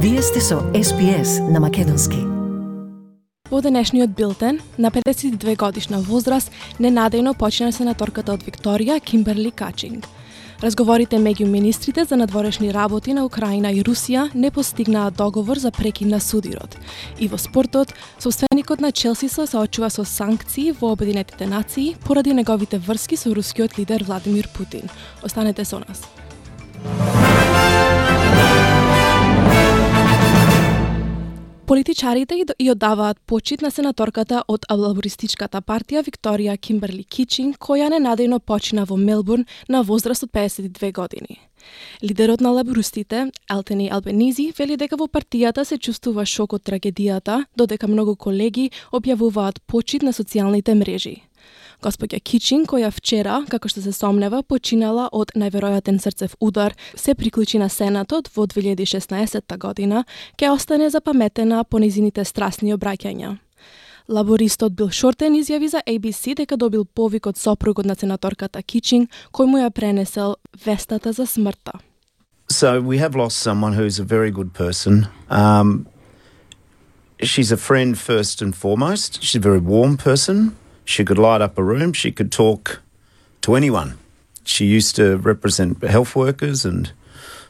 Вие сте со SPS на македонски. Во денешниот билтен, на 52 годишна возраст, ненадејно почина сенаторката од Викторија, Кимберли Качинг. Разговорите меѓу министрите за надворешни работи на Украина и Русија не постигнаа договор за прекин на судирот. И во спортот, собственикот на Челси се соочува со санкции во Обединетите нации поради неговите врски со рускиот лидер Владимир Путин. Останете со нас. Политичарите ја даваат почит на сенаторката од лабористичката партија Викторија Кимберли Качинг, која ненадејно почина во Мелбурн на возраст од 52 години. Лидерот на лабористите, Ентони Албенизи, вели дека во партијата се чувствува шок од трагедијата, додека многу колеги објавуваат почит на социјалните мрежи. Господја Качинг, која вчера, како што се сомнева, починала од најверојатен срцев удар, се приклучи на Сенатот во 2016 година, ќе остане запаметена по незините страстни обраќања. Лабористот Бил Шортен изјави за ABC дека добил повик од сопругот на сенаторката Качинг, кој му ја пренесел вестата за смртта. So we have lost someone who's a very good person. She's a friend first and foremost. She's a very warm person. She could light up a room. She could talk to anyone. She used to represent health workers,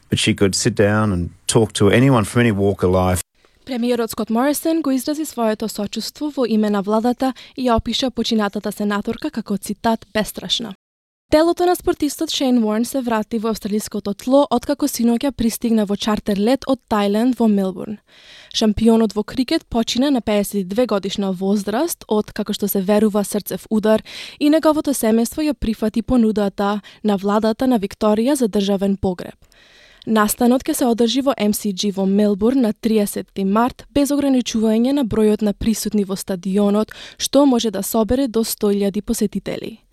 but she could sit down and talk to anyone from any walk of life. Премиерот Скот Морисон го изрази своето сочувство во име на владата и ја опиша починатата сенаторка како цитат бестрашна. Телото на спортистот Шейн Уорн се врати во австралиското тло откако синоќа пристигна во чартер лет од Тајланд во Мелбурн. Шампионот во крикет почина на 52 годишна возраст од, како што се верува, срцев удар и неговото семејство ја прифати понудата на владата на Викторија за државен погреб. Настанот ќе се одржи во MCG во Мелбурн на 30 март без ограничување на бројот на присутни во стадионот, што може да собере до 100.000 посетители.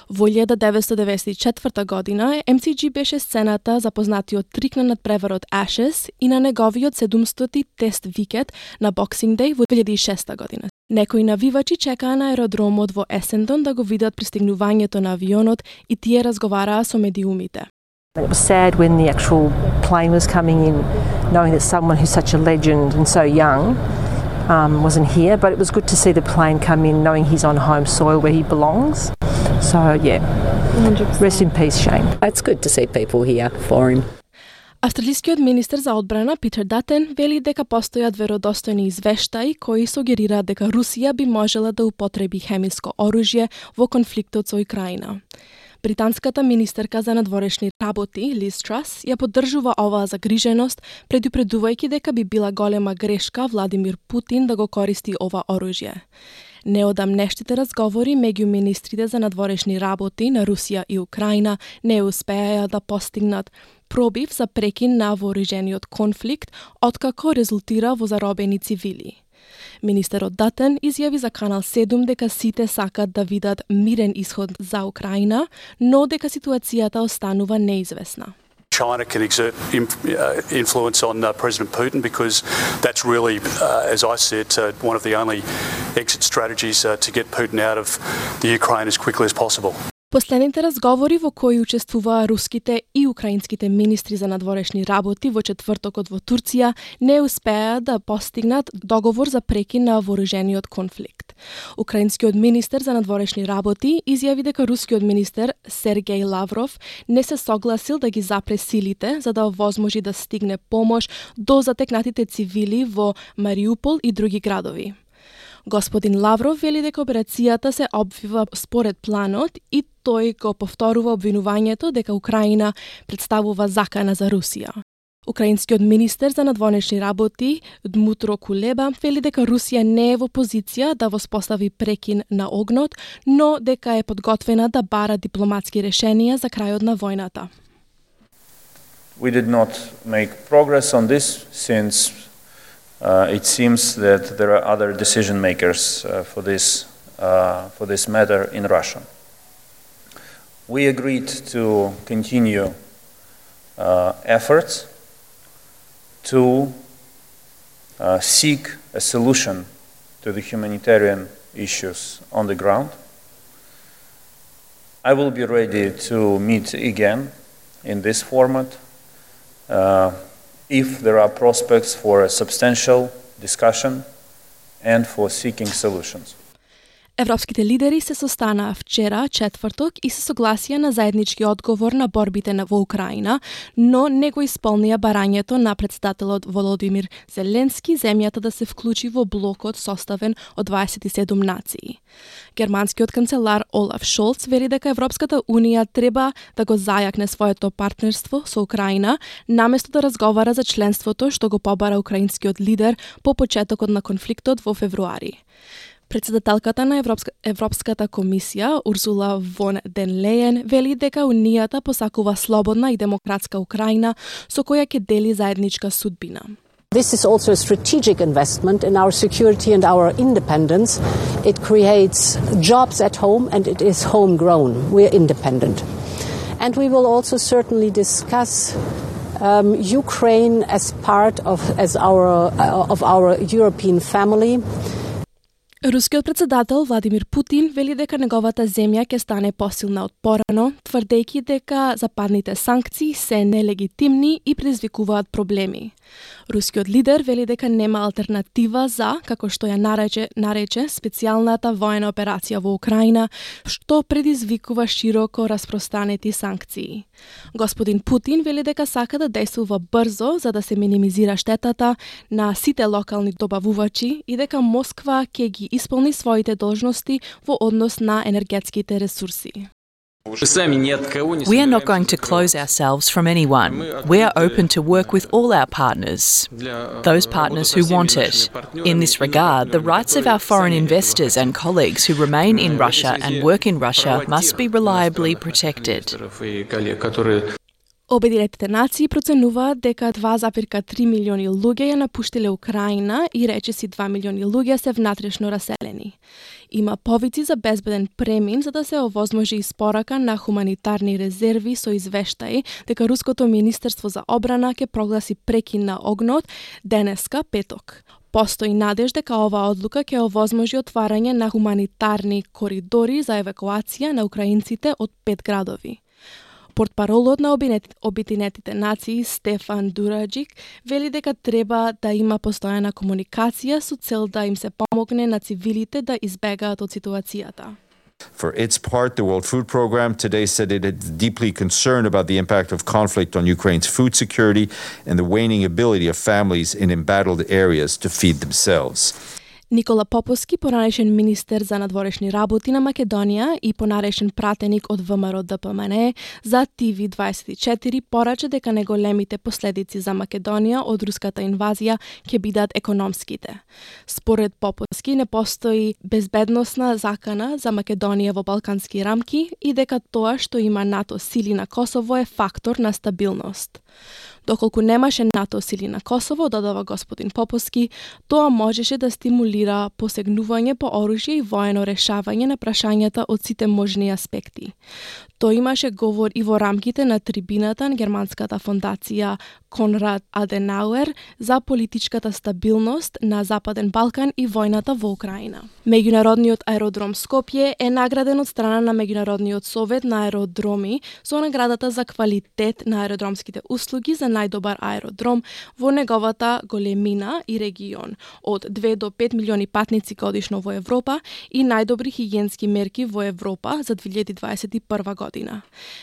Во 1994 година MCG беше сцената за познатиот трик на надпреварот Ashes и на неговиот 700 тест викет на Boxing Day во 2006 година. Некои навивачи чекаа на аеродромот во Есендон да го видат пристигнувањето на авионот и тие разговараа со медиумите. It was sad when the actual plane was coming in, knowing that someone who's such a legend and so young wasn't here, but it was good to see the plane come in knowing he's on home soil where he belongs. So, yeah, 100%. Rest in peace, Shane. It's good to see people here for him. Австралискиот министер за одбрана Питер Датен вели дека постојат веродостојни извештаи кои сугерираат дека Русија би можела да употреби хемиско оружје во конфликтот со Украина. Британската министерка за надворешни работи, Лиз Трас, ја поддржува оваа загриженост, предупредувајќи дека би била голема грешка Владимир Путин да го користи ова оружје. Неодамнештите разговори меѓу министрите за надворешни работи на Русија и Украина не успеа да постигнат пробив за прекин на вооружениот конфликт, откако резултира во заробени цивили. Министерот Датен изјави за Канал 7 дека сите сакат да видат мирен исход за Украина, но дека ситуацијата останува неизвестна. China can exert influence on President Putin because that's really, as I said, one of the only exit strategies to get Putin out of the Ukraine as quickly as possible. Последните разговори во кои учествуваа руските и украинските министри за надворешни работи во четвртокот во Турција не успеа да постигнат договор за прекин на вооружениот конфликт. Украинскиот министер за надворешни работи изјави дека рускиот министер Сергеј Лавров не се согласил да ги запре силите за да овозможи да стигне помош до затекнатите цивили во Мариупол и други градови. Господин Лавров вели дека операцијата се обвива според планот и тој го повторува обвинувањето дека Украина представува закана за Русија. Украинскиот министер за надворешни работи Дмутро Кулеба вели дека Русија не е во позиција да воспостави прекин на огнот, но дека е подготвена да бара дипломатски решенија за крајот на војната. We did not make progress on this since it seems that there are other decision makers for this matter in Russia. We agreed to continue efforts to seek a solution to the humanitarian issues on the ground. I will be ready to meet again in this format if there are prospects for a substantial discussion and for seeking solutions. Европските лидери се состанаа вчера, четврток, и се согласија на заеднички одговор на борбите во Украина, но не го исполнија барањето на председателот Володимир Зеленски земјата да се вклучи во блокот составен од 27 нации. Германскиот канцелар Олаф Шолц вели дека Европската Унија треба да го зајакне своето партнерство со Украина, наместо да разговара за членството што го побара украинскиот лидер по почетокот на конфликтот во февруари. Председателката на Европската комисија, Урсула фон ден Лејен, вели дека Унијата посакува слободна и демократска Украина со која ќе дели заедничка судбина. This is also a strategic investment in our security and our independence. It creates jobs at home and it is homegrown. We are independent. And we will also certainly discuss Ukraine as part of our European family. Рускиот председател Владимир Путин вели дека неговата земја ќе стане посилна од порано, тврдејќи дека западните санкции се нелегитимни и предизвикуваат проблеми. Рускиот лидер вели дека нема алтернатива за, како што ја нарече специјалната воена операција во Украина, што предизвикува широко распространети санкции. Господин Путин вели дека сака да действува брзо за да се минимизира штетата на сите локални добавувачи и дека Москва ќе ги исполни своите должности во однос на енергетските ресурси. We are not going to close ourselves from anyone. We are open to work with all our partners, those partners who want it. In this regard, the rights of our foreign investors and colleagues who remain in Russia and work in Russia must be reliably protected. Обединетите нации проценуваат дека 2,3 милиони луѓе ја напуштиле Украина и речиси 2 милиони луѓе се внатрешно раселени. Има повици за безбеден премин за да се овозможи испорака на хуманитарни резерви со извештаи дека Руското министерство за одбрана ќе прогласи прекин на огнот денеска петок. Постои надеж дека оваа одлука ќе овозможи отварање на хуманитарни коридори за евакуација на украинците од 5 градови. Портпаролот на Обединетите нации Стефан Дураджик вели дека треба да има постојана комуникација со цел да им се помогне на цивилите да избегаат од ситуацијата. For its part, the World Food Programme today said it is deeply concerned about the impact of conflict on Ukraine's food security and the waning ability of families in embattled areas to feed themselves. Никола Поповски, понарешен министер за надворешни работи на Македонија и понарешен пратеник од ВМРО ДПМН за TV24, порача дека неголемите последици за Македонија од руската инвазија ќе бидат економските. Според Поповски не постои безбедносна закана за Македонија во балкански рамки и дека тоа што има НАТО сили на Косово е фактор на стабилност. Доколку немаше НАТО сили на Косово, додава господин Поповски, тоа можеше да стимулира посегнување по оружје и воено решавање на прашањата од сите можни аспекти. Тоа имаше говор и во рамките на трибината на германската фондација Конрад Аденауер за политичката стабилност на Западен Балкан и војната во Украина. Меѓународниот аеродром Скопје е награден од страна на Меѓународниот совет на аеродроми со наградата за квалитет на аеродромските услуги за најдобар аеродром во неговата големина и регион, од 2 до 5 милиони патници годишно во Европа и најдобри хигиенски мерки во Европа за 2021 година.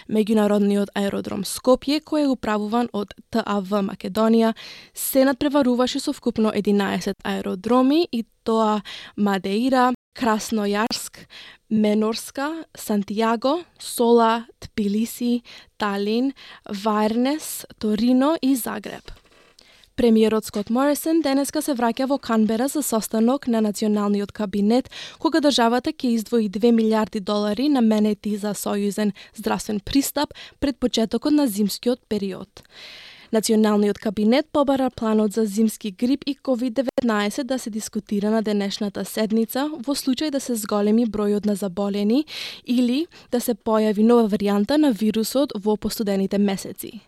Меѓународниот аеродром Скопје, кој е управуван од ТАВ Македонија, се надпреваруваше со вкупно 11 аеродроми и тоа Мадеира, Краснојарск, Менорска, Сантијаго, Сола, Тбилиси, Талин, Варнес, Торино и Загреб. Премиерот Скот Морисон денеска се враќа во Канбера за состанок на националниот кабинет, кога државата ќе издвои $2 милиарди наменети за сојузен здравствен пристап пред почетокот на зимскиот период. Националниот кабинет побара планот за зимски грип и COVID-19 да се дискутира на денешната седница во случај да се зголеми бројот на заболени или да се појави нова варијанта на вирусот во постудените месеци.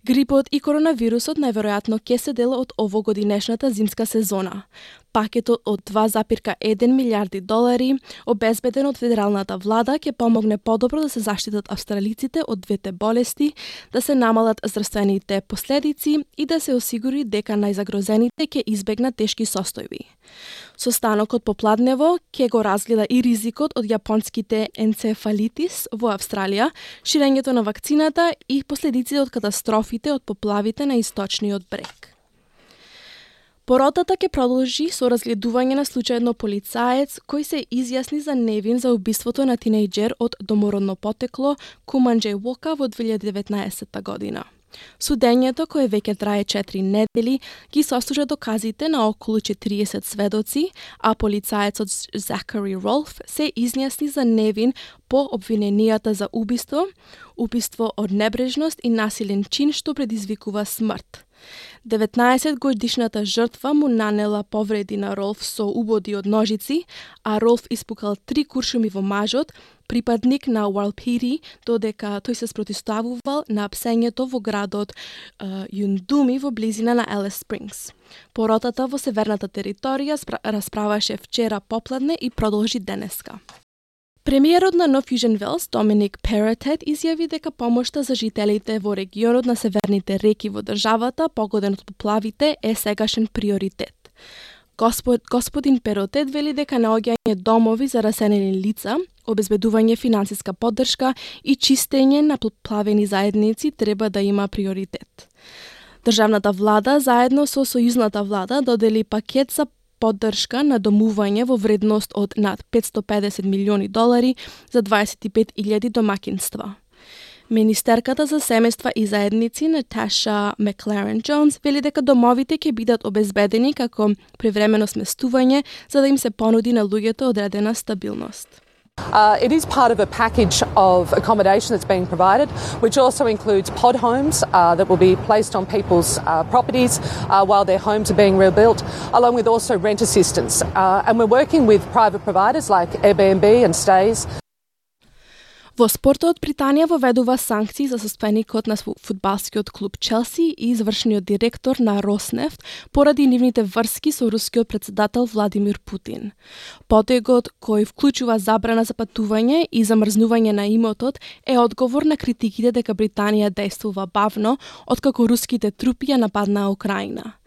Грипот и коронавирусот најверојатно ќе се дел од овогодинешната зимска сезона. Пакетот од 2,1 милиарди долари, обезбеден од федералната влада, ќе помогне подобро да се заштитат австралиците од двете болести, да се намалат здравствените последици и да се осигури дека најзагрозените ќе избегнат тешки состојби. Состанокот попладнево ќе го разгледа и ризикот од јапонските енцефалитис во Австралија, ширењето на вакцината и последиците од катастрофите од поплавите на источниот брег. Поротата ќе продолжи со разгледување на случајно полицаец кој се изјасни за невин за убиството на тинејџер од домородно потекло Куманџеј Вока во 2019 година. Судењето, кое веќе трае 4 недели, ги сослужа доказите на околу 40 сведоци, а полицаецот Закари Ролф се изјасни за невин по обвиненијата за убиство, убиство од небрежност и насилен чин што предизвикува смрт. 19-годишната жртва му нанела повреди на Ролф со убоди од ножици, а Ролф испукал 3 куршуми во мажот, припадник на Уалпири, додека тој се спротивставувал на псењето во градот Юндуми во близина на Елис Спрингс. Поротата во северната територија расправаше вчера попладне и продолжи денеска. Премиерот на Нов Јужен Велс, Доминик Перотет, изјави дека помошта за жителите во регионот на северните реки во државата, погоден од поплавите, е сегашен приоритет. Господин Перотет вели дека наоѓање домови за раселени лица, обезбедување финансиска поддршка и чистење на поплавени заедници треба да има приоритет. Државната влада заедно со сојузната влада додели пакет за поддршка на домување во вредност од над 550 милиони долари за 25.000 домакинства. Министерката за семејства и заедници Наташа Макларен Джонс вели дека домовите ќе бидат обезбедени како привремено сместување за да им се понуди на луѓето одредена стабилност. It is part of a package of accommodation that's being provided, which also includes pod homes that will be placed on people's properties while their homes are being rebuilt, along with also rent assistance. And we're working with private providers like Airbnb and Stays. Во спортот, Британија воведува санкции за состојаникот на фудбалскиот клуб Челси и извршниот директор на Роснефт поради нивните врски со рускиот председател Владимир Путин. Потегот, кој вклучува забрана за патување и замрзнување на имотот, е одговор на критиките дека Британија действува бавно откако руските трупи ја нападнаа Украина.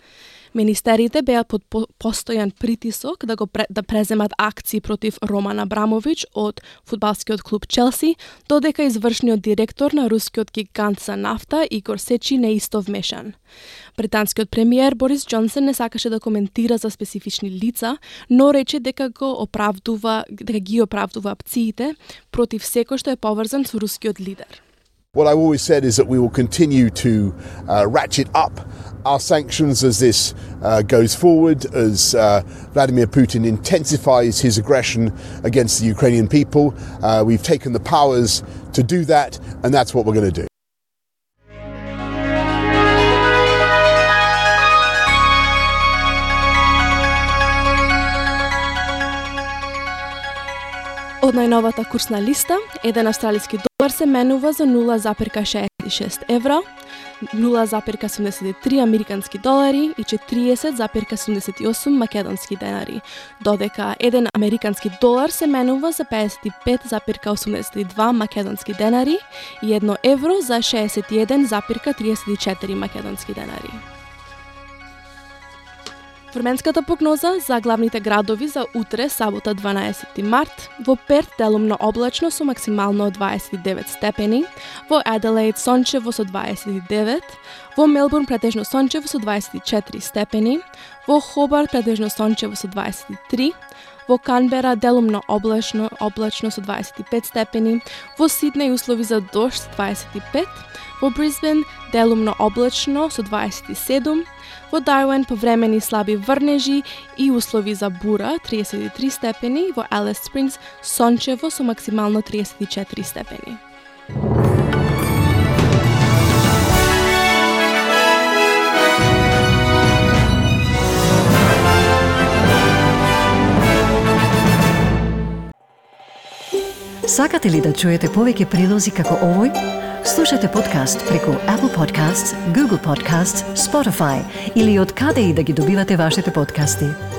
Министерите беа под постојан притисок да преземат акции против Роман Абрамович од фудбалскиот клуб Челси, додека извршниот директор на рускиот гигант за нафта Игор Сечи не исто вмешан. Британскиот премиер Борис Џонсон не сакаше да коментира за специфични лица, но рече дека ги оправдува акциите против секој што е поврзан со рускиот лидер. What I've always said is that we will continue to ratchet up our sanctions as this goes forward, as Vladimir Putin intensifies his aggression against the Ukrainian people. We've taken the powers to do that, and that's what we're going to do. Од најновата курсна листа, еден австралиски долар се менува за 0,66 евра, 0,73 американски долари и 40,78 македонски денари, додека еден американски долар се менува за 55,82 македонски денари и 1 евро за 61,34 македонски денари. Временската прогноза за главните градови за утре, сабота 12 март, во Перт делумно облачно со максимално 29 степени, во Аделаид сончево со 29, во Мелбурн претежно сончево со 24 степени, во Хобарт претежно сончево со 23, во Канбера делумно облачно со 25 степени, во Сиднеј услови за дожд 25, во Брисбен делумно облачно со 27, во Дарвин повремени слаби врнежи и услови за бура 33 степени, во Елис Спрингс сончево со максимално 34 степени. Сакате ли да чуете повеќе прилози како овој? Слушате подкаст преку Apple Podcasts, Google Podcasts, Spotify или од каде и да ги добивате вашите подкасти.